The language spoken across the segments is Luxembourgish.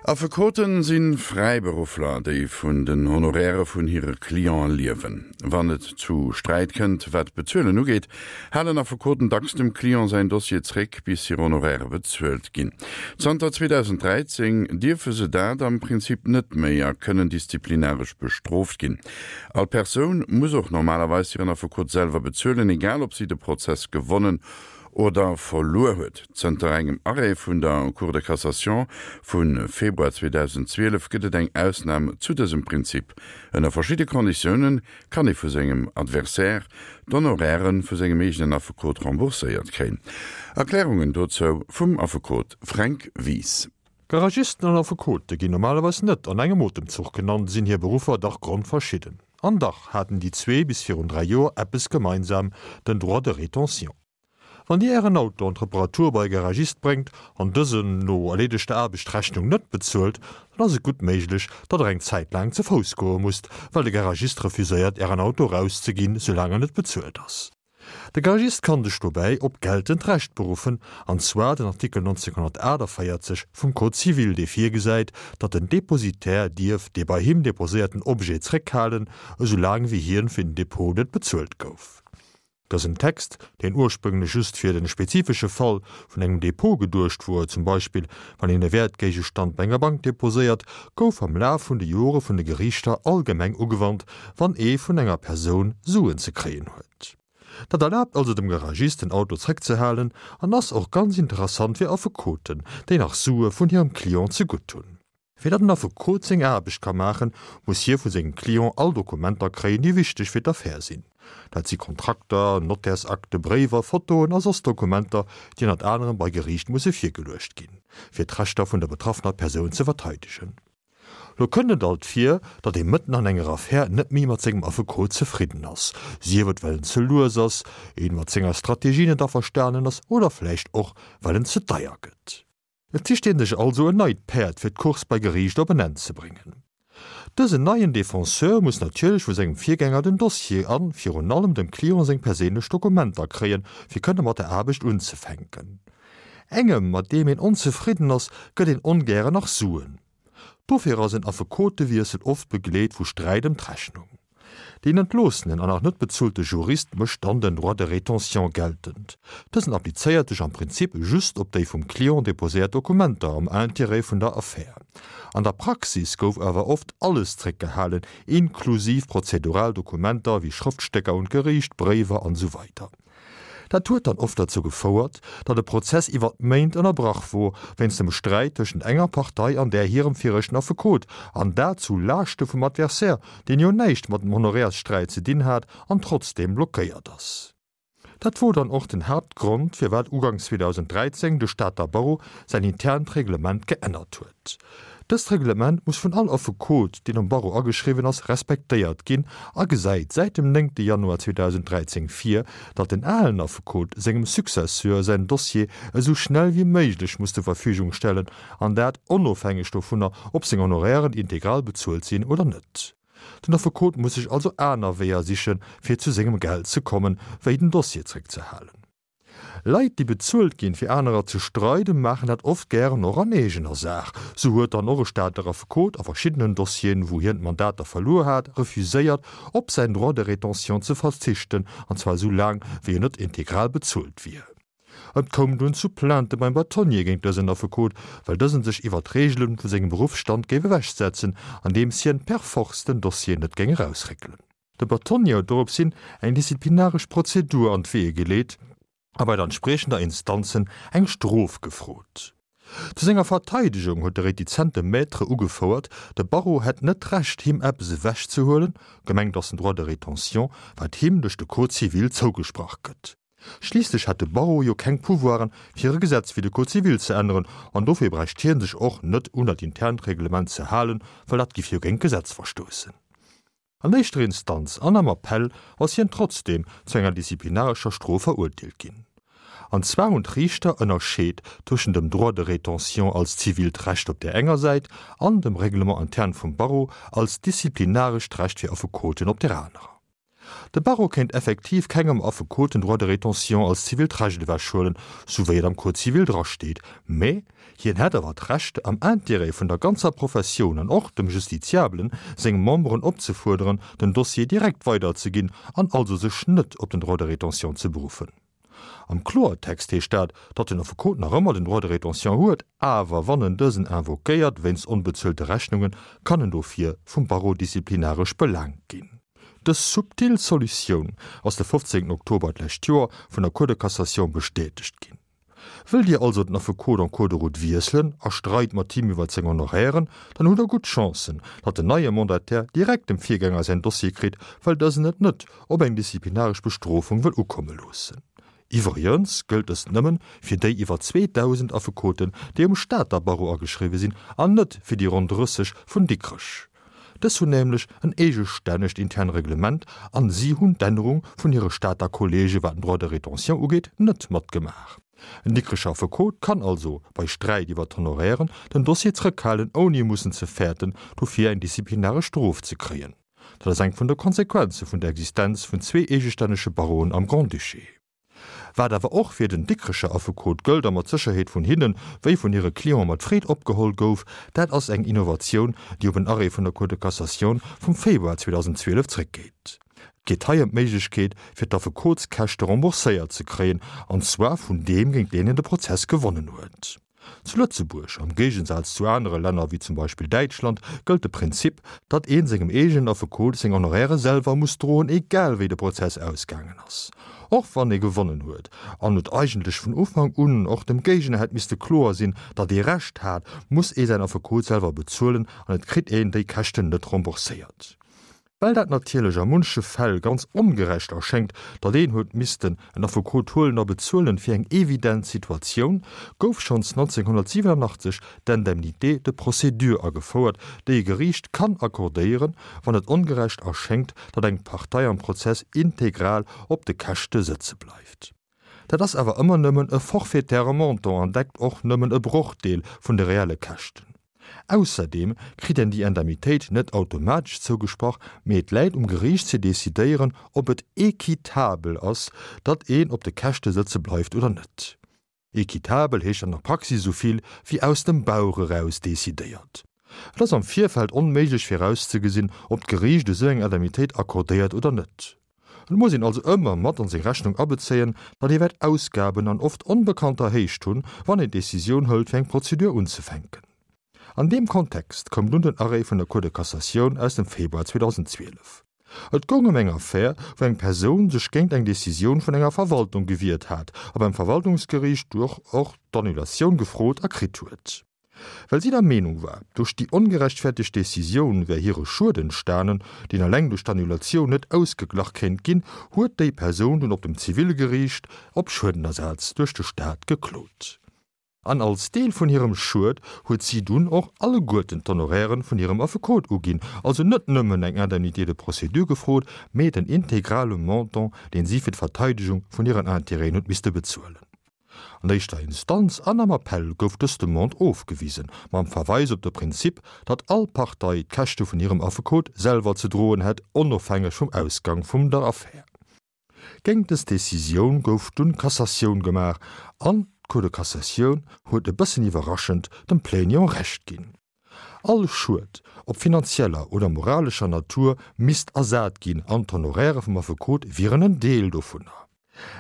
Affekoten si Fräiberuffler, déi vun den Honorairë vun hire Cliente liewen. Wann et zu Sträit kënnt, wat d'Bezuelen ugeet, halen Affekoten dacks dem Client säin Dossier zréck, bis hir Honorairë bezuelt ginn. Zanter 2013 dierfe se dat am Prinzip net méi a kënnen disziplinaresch bestrooft ginn. All Persoun muss och normalerweis hiren Affekot selwer bezuelen, egal ob si de Prozess gewonnen oder verluer huet. Zënter engem Arrêt vun der Cour de cassation vu Februar 2012 gëtt et eng Ausnam zu dësem Prinzip. Ënner verschidde Konditioune kann ee vu sengem Adversaire d'Honoraire vu sengem eegenen Affekot rembourséiert kréien. Erklärungen dozou vum Affekot Fränk Wies. Garagisten an Affekote ginn normalerweis net an engem Otemzuch genannt, sinn hir Beruffer dach grondverschidden. An dach haten déi zwee bis virun 3 Joer eppes gemeinsam, den Droit de rétention. Wann Dir Ären Auto an d'Reparatur bei e Garagist bréngt an dësen no erleedegter Aarbecht d'Rechnung net bezuelt, dann ass et gutt méiglech, datt Der eng Zäit laang ze Fouss goe musst, well de Garagist refuséiert Ären Auto erauszeginn, soulaang en net bezuelt ass. De Garagist kann sech dobäi op geltend Recht beruffen, an zwar den Artikel 1948 vum Code civil, dee virgesäit, datt den Depositaire dierf dee bei him deposéierten Objet zréckhalen, esou laang wéi hien fir den Depot net bezuelt gouf. Dësen Text, deen ursprünglech just fir de spezifesche Fall vun engem Depot geduecht wor, zum Beispill wann een e Wäertgéigestand bei enger Bank deposéiert, gouf am Laf vun de Jore vun de Geriichter allgemeng ugewannt, wann ee vun enger Persoun Suen ze kréien huet. Dat erlaabt also dem Garagist den Auto zréckzehalen an ass och ganz interessant fir Affekoten, déi nach Sue vun hirem Client zegutt hunn. Fir datt en Affekot seng Aarbecht ka maachen, muss hie vu sengem Client all Dokumenter kréien, déi wichteg fir d'Affär sinn. Dat si Kontrakter, Nottärsakte, Bréiwer, Fotoen a soss Dokumenter, déi ënnert anerem bei Geriicht musse virgeluecht ginn, fir d'Rechter vun der betraffener Persoun ze verteidegen. Lo kënnt et alt vir, datt ee mëtten an enger Affär net méi mat sengem Affekot zefridden ass, sief et well en ze lues ass, een mat senger Strategie net averstanen ass oder vläicht och well en ze deier gëtt. Et sicht een sech also en neit Päerd fir d'Course bei Geriicht op en Enn ze bréngen. Dësen neien Defenseur muss natierlech vu sengem Virgänger den Dossier an virun allem dem Client seng perséinlech Dokumenter kréien, fir kënne mat der Aarbecht unzefänken. Engem, mat deem een onzefridden ass, gëtt een ongären nach Suen. Dofir ass en Affekotewiessel oft begleet vu Sträit ëm d'Rechnung. Deen entloossenen an nach net bezuelte Jurist mécht dann den Droit de rétention geltend. Dësen applizéiert sech am Prinzip just op déi vum Client deposéiert Dokumenter am Intérêt vun der Affär. An der Praxis gouf awer oft alles zréckgehalen, inklusiv prozedural Dokumenter wéi Schrëftstécker un d'Geriicht, Bréiwer an esou weider. Dat huet dann oft derzou gefouert, datt e Prozess iwwer Méint ënnerbrach wor, wéinst dem Sträit tëschent enger Partei an där hirem viregten Affekot, an dat zu Laaschte vum Adversaire, deen jo näischt mat dem Honorairssträit ze dinn hat an trotzdeem blockéiert ass. Dat wor dann och den Haaptgrond, firwat uganks 2013 de Stater Barreau säin internt Reglement geännert huet. Dëst Reglement muss vun all Affekot, deen um Barreau ageschriwwen ass, respektéiert ginn a gesäit säit dem 9 Januar 2013 vir, datt den alen Affekot sengem Successeur säin Dossier esou schnell wéi méiglech muss zur Verfügung stellen, an dat onofhängeg dovunner, ob seng Honorairen integral bezuelt sinn oder net. Den Affekot muss sech also aner Weeër sichen, fir zu sengem Geld ze kommen, wéi den Dossier zréckzehalen. Leit, déi bezuelt ginn, fir anerer ze streiden, maachen dat oft gären och an eegener Saach. Sou huet dann och e Stater Affekot a verschiddenen Dossieren, wou hien d'Mandater verluer hat, refuséiert, op säin Droit de rétention ze verzichten, an zwar esou laang, wéi en net integral bezuelt wier. Et koum dunn zu Plainte beim Bâtonnier géint dësen Affekot, well dësen sech iwwer d'Reegelen vu sengem Beruffsstand géif ewechsetzen, andeems hien per force den Dossier net géing erausréckelen. De Bâtonnier huet dorops hin eng disziplinaresch Prozedur an d'Weeë geleet a bei der entspriechender Instanzen eng Strof gefrot. Zu senger Verteidegung huet de retizente Maître ugefouert, de Barreau hätt net d'Recht him eppes ewechzehuelen, gemengt ass den Droit de rétention, wat him duerch de Code civil zougesprach gëtt. Schliisslech hätt de Barreau jo keng Pouvoiren, fir e Gesetz wéi de Code civil ze änneren, an dofir bräicht hie sech och net un dat internt Reglement ze halen, well dat giff jo géint d'Gesetz verstoussen. An éischter Instanz an am Appell ass hien trotzdeem zu enger disziplinarescher Strof verurteelt ginn. An zwar hunn d'Riichter ënnerscheet tëschent dem Droit de rétention als zivilt Recht op där enger Säit an dem Règlement interne vum Barreau als disziplinarescht Recht fir Affekoten op där anerer. De Barreau kéint effektiv kengem Affekot den Droit de rétention als zivilt Recht ewechhuelen, sou wéi et am Code civil drasteet, mä hien hätt awer d'Recht, am Intérêt vun der ganzer Professioun an och dem Justiziabelen seng Memberen opzefuerderen, den Dossier direkt weiderzeginn an also sech net op den Droit de rétention ze beruffen. Am Kloertext heescht dat, datt den Affekot nach ëmmer den Droit de rétention huet, awer wann en dësen invoquéiert wéinst onbezuelte Rechnungen, kann en dofir vum Barreau disziplinaresch belaangt ginn. Dës subtil Solutioun ass de 15 Oktober d'lescht Joer vun der Cour de Cassation bestätegt ginn. Wëllt Dir also den Affekot en cours de route wiesselen a streit mat him iwwert seng Honorairen, dann hutt Der gutt Chancen, datt den neie Mandataire direkt dem Virgänger säin Dossier kritt, well dësen et net op eng disziplinaresch Bestrofung wëll ukomme loossen. Iwwregens gëllt dëst nëmmen fir déi iwwer 2.000 Affekoten, déi um Stater Barreau ageschriwwe sinn, an net fir déi ronn 30 vun Dikrech. Dës hunn nämlech en eegestännegt intern Reglement an si hunn d'Ännerung vun hire Stater Kollege wat den Droit de rétention ugeet net matgemaach. En Dikrecher Affekot kann also bei Sträit iwwer d'Honorairen den Dossier zrëckhalen ouni mussen ze fäerten dofir eng disziplinaresch Strof ze kréien. Dat ass eng vun de Konsequenze vun der Existenz vun zwee eegestännege Barreauen am Grand-Duché. Wat awer och fir den Dikrecher Affekot gëllt a mat Sécherheet vun hinne wéi vun hire Cliente mat Freed opgeholl gouf, dat ass eng Innovatioun, déi op en Arrêt vun der Cour de Cassation vum Februar 2012 zréckgeet. Et geet hei ëm d'Méiglechkeet, fir d'Affekotskäschte rembourséiert ze kréien, an zwar vun deem, géint deen een de Prozess gewonnen huet. Zu Lëtzebuerg, am Géigensaz zu anere Länner wéi zum Beispill Däitschland, gëllt de Prinzip, datt ee sengem eegenen Affekot seng Honoraire selwer muss droen, egal wéi de Prozess ausgaangen ass. Och wann ee gewonnen huet an et eigentlech vun Ufank un och dem Géigner hätt misste kloer sinn, datt ee Recht hat, muss ee säin Affekot selwer bezuelen an et kritt een déi Käschten net rembourséiert. Well dat natierlech a munche Fäll ganz ongerecht erschéngt, datt een huet missten en Affekot huelen a bezuelen fir eng evident Situatioun, gouf schonns 1987 d'Indemnité de procédure agefouert, déi e Geriicht kann accordéieren, wann et ongerecht erschéngt, datt eng Partei am Prozess integral op de Käschte sëtze bleift. Dat ass awer ëmmer nëmmen e forfaitaire Montant an deckt och nëmmen e Brochdeel vun de reelle Käschten. Ausserdeem kritt een déi Indemnitéit net automatesch zougesprach, mee et läit um Geriicht ze decidéieren, ob et équitabel ass, datt een op de Käschte sëtze bleift oder net. Équitabel heescht an der Praxis esou vill wéi aus dem Bauch eraus decidéiert. Et ass am Virfeld onméiglech virauszegesinn, ob d'Geriicht esou eng Indemnitéit accordéiert oder net. Et muss een also ëmmer mat an seng Rechnung abezéien, datt ee wäert Ausgaben an oft onbekannter Héicht hunn, wann een d'Decisioun hëlt fir eng Prozedur unzefänken. An deem Kontext koum dunn den Arrêt vun der Cour de Cassatioun aus dem Februar 2012. Et goung ëm eng Affär, wou eng Persoun sech géint eng Decisioun vun enger Verwaltung gewiert hat a beim Verwaltungsgeriicht duerch och d'Annulatioun gefrot a kritt huet. Well si der Meenung war, duerch déi ongerechtfertegt Decisioun wär hire Schued entstanen, deen eleng duerch d'Annulatioun net ausgeglach kéint ginn, huet déi Persoun dunn op dem Zivilgeriicht op Schuedenersaz duerch de Staat geklot. An als Deel vun hirem Schued huet si dunn och alleguerten d'Honorairen vun hirem Affekot uginn, also net nëmmen eng Indemnité de procédure gefrot, mee den integrale Montant, deen si fir d'Verteidegung vun hiren Intérêten huet misste bezuelen. An éischter Instanz an am Appell gouf dës Demande ofgewisen, mam Verweis op de Prinzip, datt all Partei d'Käschte vun hirem Affekot selwer ze droen hätt, onofhängeg vum Ausgang vum der Affär. Géint dës Decisioun gouf dunn Cassatioun gemaach an d'Cour de Cassatioun huet e bëssen iwwerraschend dem Plaignant Recht ginn. All Schued, ob finanzieller oder moralescher Natur, misst ersat ginn an d'Honoraire vum Affekot wieren en Deel dovunner.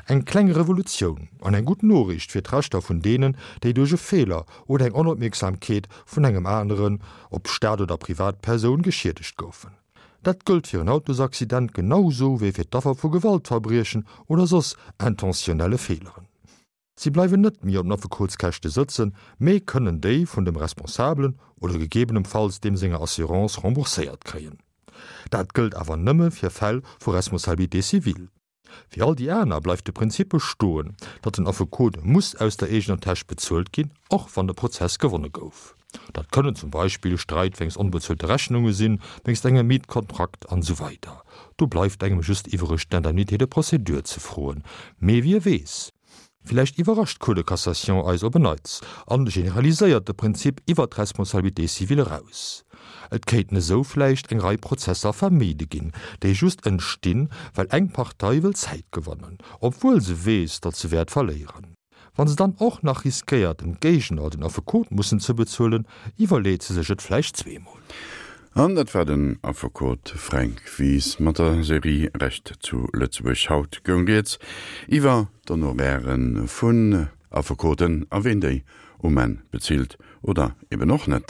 Eng kleng Revolutioun an eng gutt Noriicht fir d'Rechter vun deenen, déi duerch e Feeler oder eng Onopmierksamkeet vun engem aneren, ob Staat oder Privatpersoun, geschiedegt goufen. Dat gëllt fir en Autosaccident genau sou wéi fir d'Affer vu Gewaltverbriechen oder soss intentionnelle Feeleren. Si bleiwen net méi op den Affekotskäschte sëtzen, mee kënnen déi vun dem Responsabelen oder gegebenenfalls deem senger Assurance rembourséiert kréien. Dat gëllt awer nëmme fir Fäll vu Responsabilité civile. Fir all déi aner bleift de Prinzip bestoen, datt den Affekot muss aus der eegener Täsch bezuelt ginn, och wann de Prozess gewonne gouf. Dat kënnen zum Beispill Streit wéinst onbezuelte Rechnunge sinn, wéinst engem Mietkontrakt an esou weider Do bleift engem just iwwereg d'Indemnité de procédure ze froen. Mee wie weess? Villäicht iwwerrascht d'Cour de cassation eis op en Neits an generaliséiert de Prinzip iwwer d'Responsabilité civile eraus. Et kéinten esou vläicht eng Rei Prozesser vermide ginn, déi just entstinn, well eng Partei wëll Zäit gewannen, obwuel se weess, datt se wäert verléieren. Wa se dann och nach riskéiert, dem Géigner den Affekot mussen ze bezuelen, iwwerleet se sech et vläicht zweemol. An dat war den Affekot Fränk Wies mat der Serie Recht zu Lëtzebuerg. Haut goung rieds iwwer d'Honoraire vun Affekoten a ween déi um Enn bezilt oder eben och net.